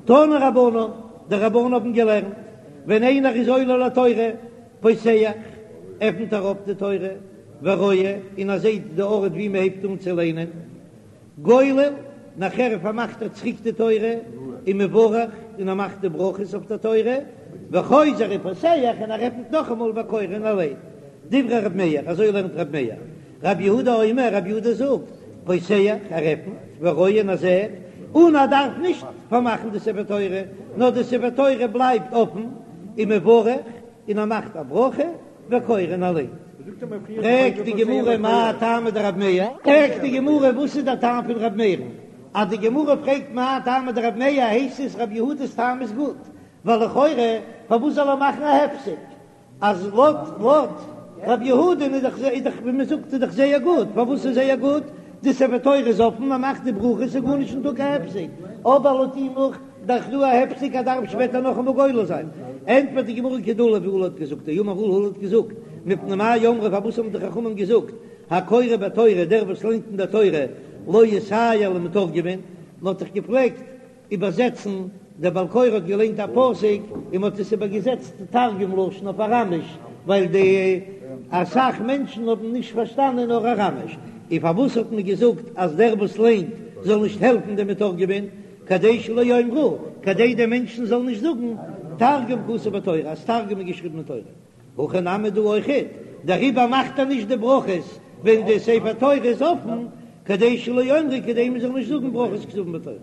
תנו רבנן, די רבנן האבן געלערנט, ווען איינער איז עולה לתורה, פותח, עפנט ער אויף די תורה, ורואה, און ער זעט די ארט ווי מען הייבט אן צו ליינען, גולל, נאכער פארמאכט ער צוריק די תורה, ומברך, און ער מאכט די ברכות אויף די תורה, וחוזר ופותח, און ער עפנט נאכאמאל וקורא און ער ליינט. דברי ר' מאיר, אזוי לערנט ר' מאיר. ר' יהודה אומר, ר' יהודה זאגט, פותח, ער עפנט, ורואה און ער זעט, און ער דארף נישט פארמאכן די ספר תורה, נאר די ספר תורה בלייבט אפן, ומברך, און ער מאכט א ברכה, וקורא און ער ליינט. פרעגט די גמרא מאי טעמא דרב מאיר? פרעגט די גמרא וואס איז דער טעם פון רב מאיר'ן? אז די גמרא פרעגט מאי טעמא דרב מאיר הייסט עס רב יהודה'ס טעם איז גוט, ווייל לכאורה פארוואס זאל ער מאכן א הפסק? אז לויט לויט רב יהודה'ן איז דאך איז דאך ווי מען זאגט איז דאך זייער גוט, פארוואס איז זייער גוט? די ספר תורה איז אפן, מען מאכט די ברכות איז גארנישט נישטא קיין הפסק, אבער לויט אים נאך דאך דא א הפסק ער דארף שפעטער נאכאמאל גולל זיין. ענטפערט די גמרא כדעולא ווי עולא האט געזאגט, דאמר עולא עולא האט געזאגט, מפני מה אמרו פארוואס האבן די חכמים געזאגט הקורא בתורה דער וואס ליינט אין דער תורה לא יסייע למתורגמן, מען האט דאך געפלעגט איבערזעצן, דער בעל קורא האט געליינט א פסוק און מען האט עס איבערגעזעצט תרגום לשון אויף אראמיש, ווייל די אסאך מענטשן האבן נישט פארשטאנען נאר אראמיש, און פארוואס האט מען געזאגט אז דער וואס ליינט זאל נישט העלפן דעם מתורגמן, כדי שלא יאמרו, כדי די מענטשן זאלן נישט זאגן, תרגום כתוב בתורה, אז תרגום איז געשריבן אין תורה. הכא נמי דא אויכעט, דעריבער מאכט ער נישט די ברכות ווען די ספר תורה איז אפן, כדי שלא יאמרו כדי מען זאל נישט זאגן ברכות כתובין בתורה.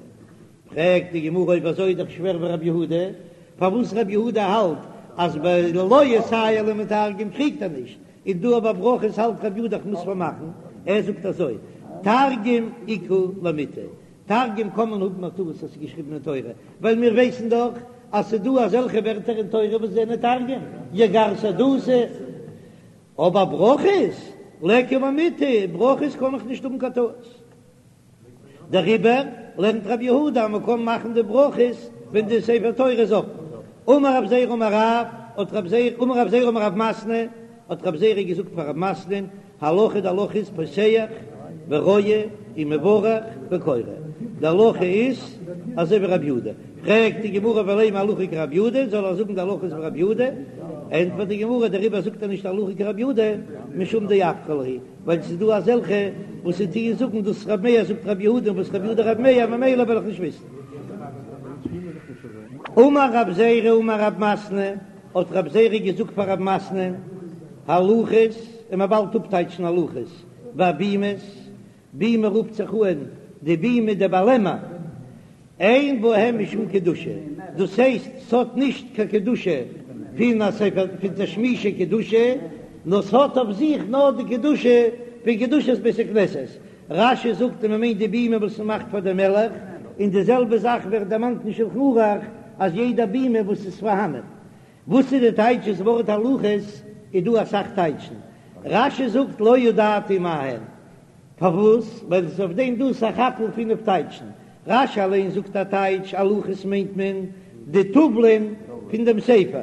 פרעגט די גמרא אויב אזוי איז דאך שווער ווי רבי יהודה, פארוואס רבי יהודה האלט אז ביי לא יסייע למתרגם קריגט ער נישט, און דא ביי ברכות האלט רבי יהודה איך מוז פארמאכן, ער זאגט אזוי, תרגום איכא למיטעי, תרגום קען מען האבן א טעות אז ס'איז געשריבן אין תורה, ווייל מיר ווייסן דאך אז ס'איז דא אזעלכע ווערטער אין תורה וואס זענען תרגום, יגר שהדותא, אבער ברכות, ליכא למיטעי, ברכות קען איך נישט האבן קיין טעות. דעריבער לערנט רבי יהודה אז מ'קען מאכן די ברכות ווען די ספר תורה איז אפן. אמר רב זירא אמר רב, האט רב זירא, אמר רב זירא אמר רב מתנה, האט רב זירא געזאגט פאר רב מתנה'ן, הלכה די הלכה איז פותח ורואה ומברך וקורא, די הלכה איז אזוי ווי רבי יהודה, פרעגט די גמרא ולימא הלכה כרבי יהודה, זאל ער זאגן די הלכה איז ווי רבי יהודה, ענטפערט די גמרא דעריבער זאגט ער נישט הלכה כרבי יהודה משום דאפכא להו, ווייל ס'איז דא אזעלכע וואס זיי טוען זאגן דאס רבי מאיר זאגט רבי יהודה און וואס רבי יהודה רבי מאיר ממילא וועל איך נישט וויסן. אמר רב זירא אמר רב מתנה, האט רב זירא געזאגט פאר רב מתנה, הלוחות, און מען באלד אפטייטשן הלוחות, והבימות, בימה רופט זיך אן די בימה די באלעמער, אין בהם משום קדושה, דאס הייסט ס'האט נישט קיין קדושה פון א ספר פון תשמישי קדושה, נאר ס'האט אויף זיך נאר די קדושה פון קדושת בית הכנסת, רש"י זאגט אז מ'מיינט די בימה וואס מ'מאכט פאר די מלך, און די זעלבע זאך ווערט דערמאנט אין שלחן ערוך אז יעדע בימה וואס איז פארהאנען. וואס איז די טייטש דאס ווארט הלוחות? איז דא אסאך טייטשן. רש"י זאגט לא ידעתי מה הן. פארוואס? ווייל עס איז אויף דעם דא סך הכל פינף טייטשן. רש"י אליין זאגט א טייטש, הלוחות מיינט מען די טאוולען פון דעם ספר.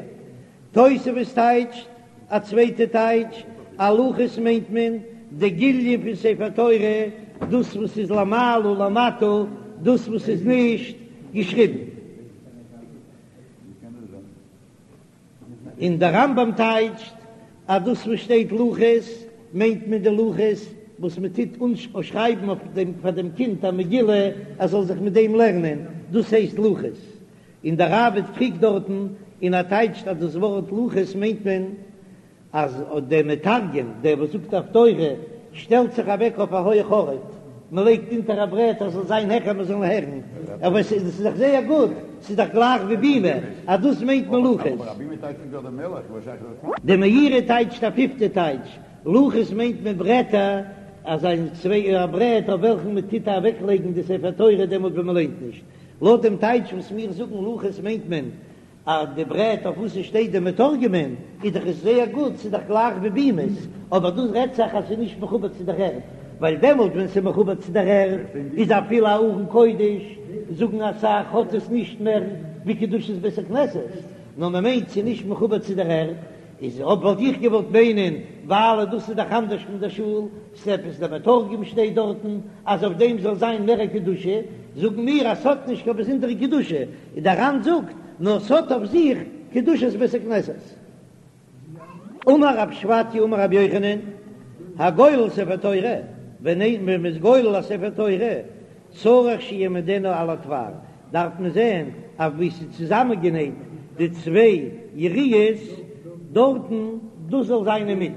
תוספות טייטשט א צווייטע טייטש, הלוחות מיינט מען די גיליון פון ספר תורה, דאס וואס איז למעלה למטה, דאס וואס איז נישט געשריבן. און דער רמב"ם טייטשט אז דאס וואס שטייט לוחות מיינט מען די לוחות וואס מען טוט אנשרייבן אויף דעם פאר דעם קינד א מגילה ער זאל זיך מיט דעם לערנען, דאס הייסט לוחות. און דער ראב"ד קריגט דארטן און ער טייטשט אז דאס ווארט לוחות מיינט מען אז דער מתרגם, דער וואס זאגט הפטורה, שטעלט זיך אוועק אויף א הויך ארט, מען לייגט אונטער א ברעט אז ס'זאל זיין העכער מען זאל הערן, אבער עס איז דאך זייער גוט, ס'איז דאך גלייך ווי בימה, אז דאס מיינט מען לוחות. די מאירי טייטשט א פיפטע טייטש, לוחות מיינט מען ברעטער, אזא צוויי א ברעט אויף וועלכן מען טוט אוועקלייגן די ספר תורה דעמאלט ווען מען ליינט נישט. לויט דעם טייטש וואס מיר זאגן לוחות מיינט מען אז די ברעט אויף וואס עס שטייט די מתורגמן איז דאך עס זייער גוט, ס'איז דאך גלייך ווי בימות, אבער דא רעדט זיך אז ס'איז נישט מחובר צו דער ערד, ווייל דעמאלט ווען ס'איז מחובר צו דער ערד איז אפילו א ארון קודש, זאגן אסאך, האט עס נישט מער ווי קדושת בית הכנסת, נאר מ'מיינט ס'איז נישט מחובר צו דער ערד, איז אויב וואלט איך געוואלט מיינען ווייל דאס איז דאך אנדערש פון דער שול, ס'עפעס דער מתרגם שטייט דארטן אז אויף דעם זאל זיין מער א קדושה. זאגן מיר אז ס'האט נישט קיין באזונדערע קדושה, און דער ר"ן זאגט נאר ס'האט אויף זיך קדושת בית הכנסת. אמר רב שפטיה אמר רבי יוחנן, הגולל ספר תורה, ווען מען איז גולל א ספר תורה, צריך שיעמידנו על התפר, דארף מען זען אויף ווי ס'איז צוזאמענגענייט די צוויי יריעות דארטן, דאס זאל זיין אינמיטן.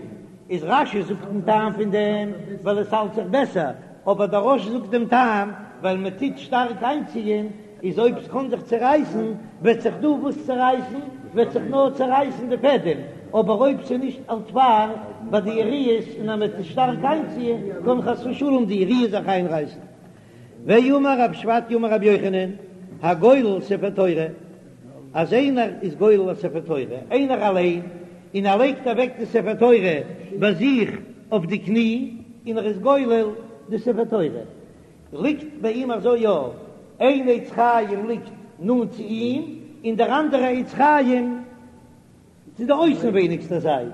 איז רש"י זאגט דעם טעם פון דעם ווייל עס האלט זיך בעסער, אבער דער רא"ש זאגט דעם טעם ווייל מען טוט שטארק איינציען, איז אויב ס'קען זיך צערייסן וועט זיך דא וואס צערייסן, וועט זיך נאר צערייסן די פעדעם, אבער אויב ס'איז נישט על תפר ביי די יריעות און אז מען טוט שטארק איינציען קען חס ושלום די יריעה זיך איינרייסן. ואמר רב שפטיה אמר רבי יוחנן, הגולל ספר תורה, אז איינער איז גולל א ספר תורה, איינער אליין, און ער לייגט אוועק די ספר תורה ביי זיך אויף די קני, און ער איז גולל די ספר תורה, ליגט ביי אים אזוי יא, איין עץ חיים ליגט נאנט צו אים, און דער אנדערע עץ חיים צו די אויסנווייניגסטע זייט,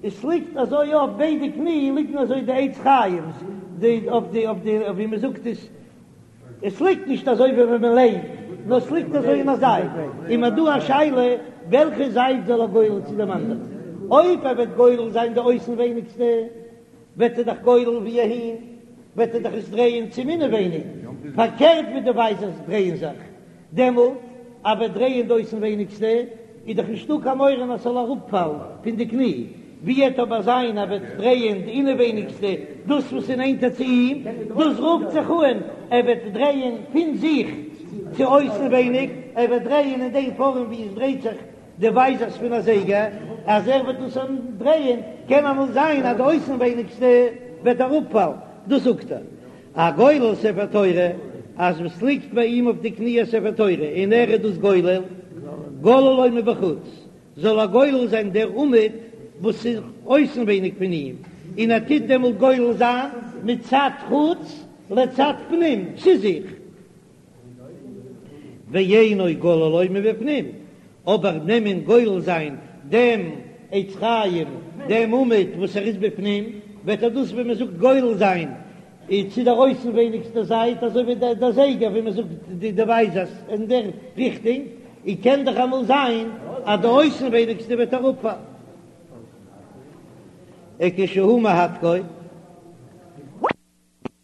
עס ליגט אזוי אויף ביידע קני ליגן אזוי די עץ חיים'ס, די אויף די אויף די ווי מען זאגט עס, עס ליגט נישט אזוי ווי ווען מען ליינט, נאר עס ליגט אזוי אין א זייט, און מ'האט דא א שאלה וועלכע זייט זאל ער גולל צו דעם אנדערן, אויב ער וועט גולל זיין די אויסנווייניגסטע וועט ער דאך גולל ווי אהין, וועט ער דאך עס דרייען צום אינעווייניג, פארקערט ווי די ווייזערס דרייען זיך. דעמאלט אז ער וועט דרייען די אויסנווייניגסטע, איז דאך נישטא קיין מורא אז ס'זאל אראפפאלן פון די קני, ווי וועט אבער זיין אז ער וועט דרייען די אינעווייניגסטע, דאס וואס איז נענטער צו אים, דאס רופט זיך אן ער וועט דרייען פון זיך צו אויסנווייניג, ער וועט דרייען אין דעם פארעם ווי עס דרייט זיך די ווייזערס פון א זייגער, אז ער וועט דאס דרייען, קען אמאל זיין אז די אויסנווייניגסטע וועט אראפפאלן, דאס זאגט ער. הגולל ספר תורה, אז וואס ליגט ביי אים אויף די קני א ספר תורה און ער איז דאס גולל, גוללו מבחוץ, זאל ער גולל זיין דער עמוד וואס איז אויסנווייניג פון אים, און ער טוט דעמאלט גולל זיין מצד חוץ לצד פנים, צו זיך. ואינו גוללו מבפנים, אבער נעמען גולל זיין דעם עץ חיים, דעם עמוד וואס ער איז בפנים, וועט ער דאס ווי מען זאגט גולל זיין צו דער אויסנווייניגסטער זייט, אזוי ווי דער זייגער ווי מען זאגט די ווייזערס אין דער ריכטונג, און קען דאך אמאל זיין אז די אויסנווייניגסטע וועט אראפפאלן. וכשהוא מהדקו.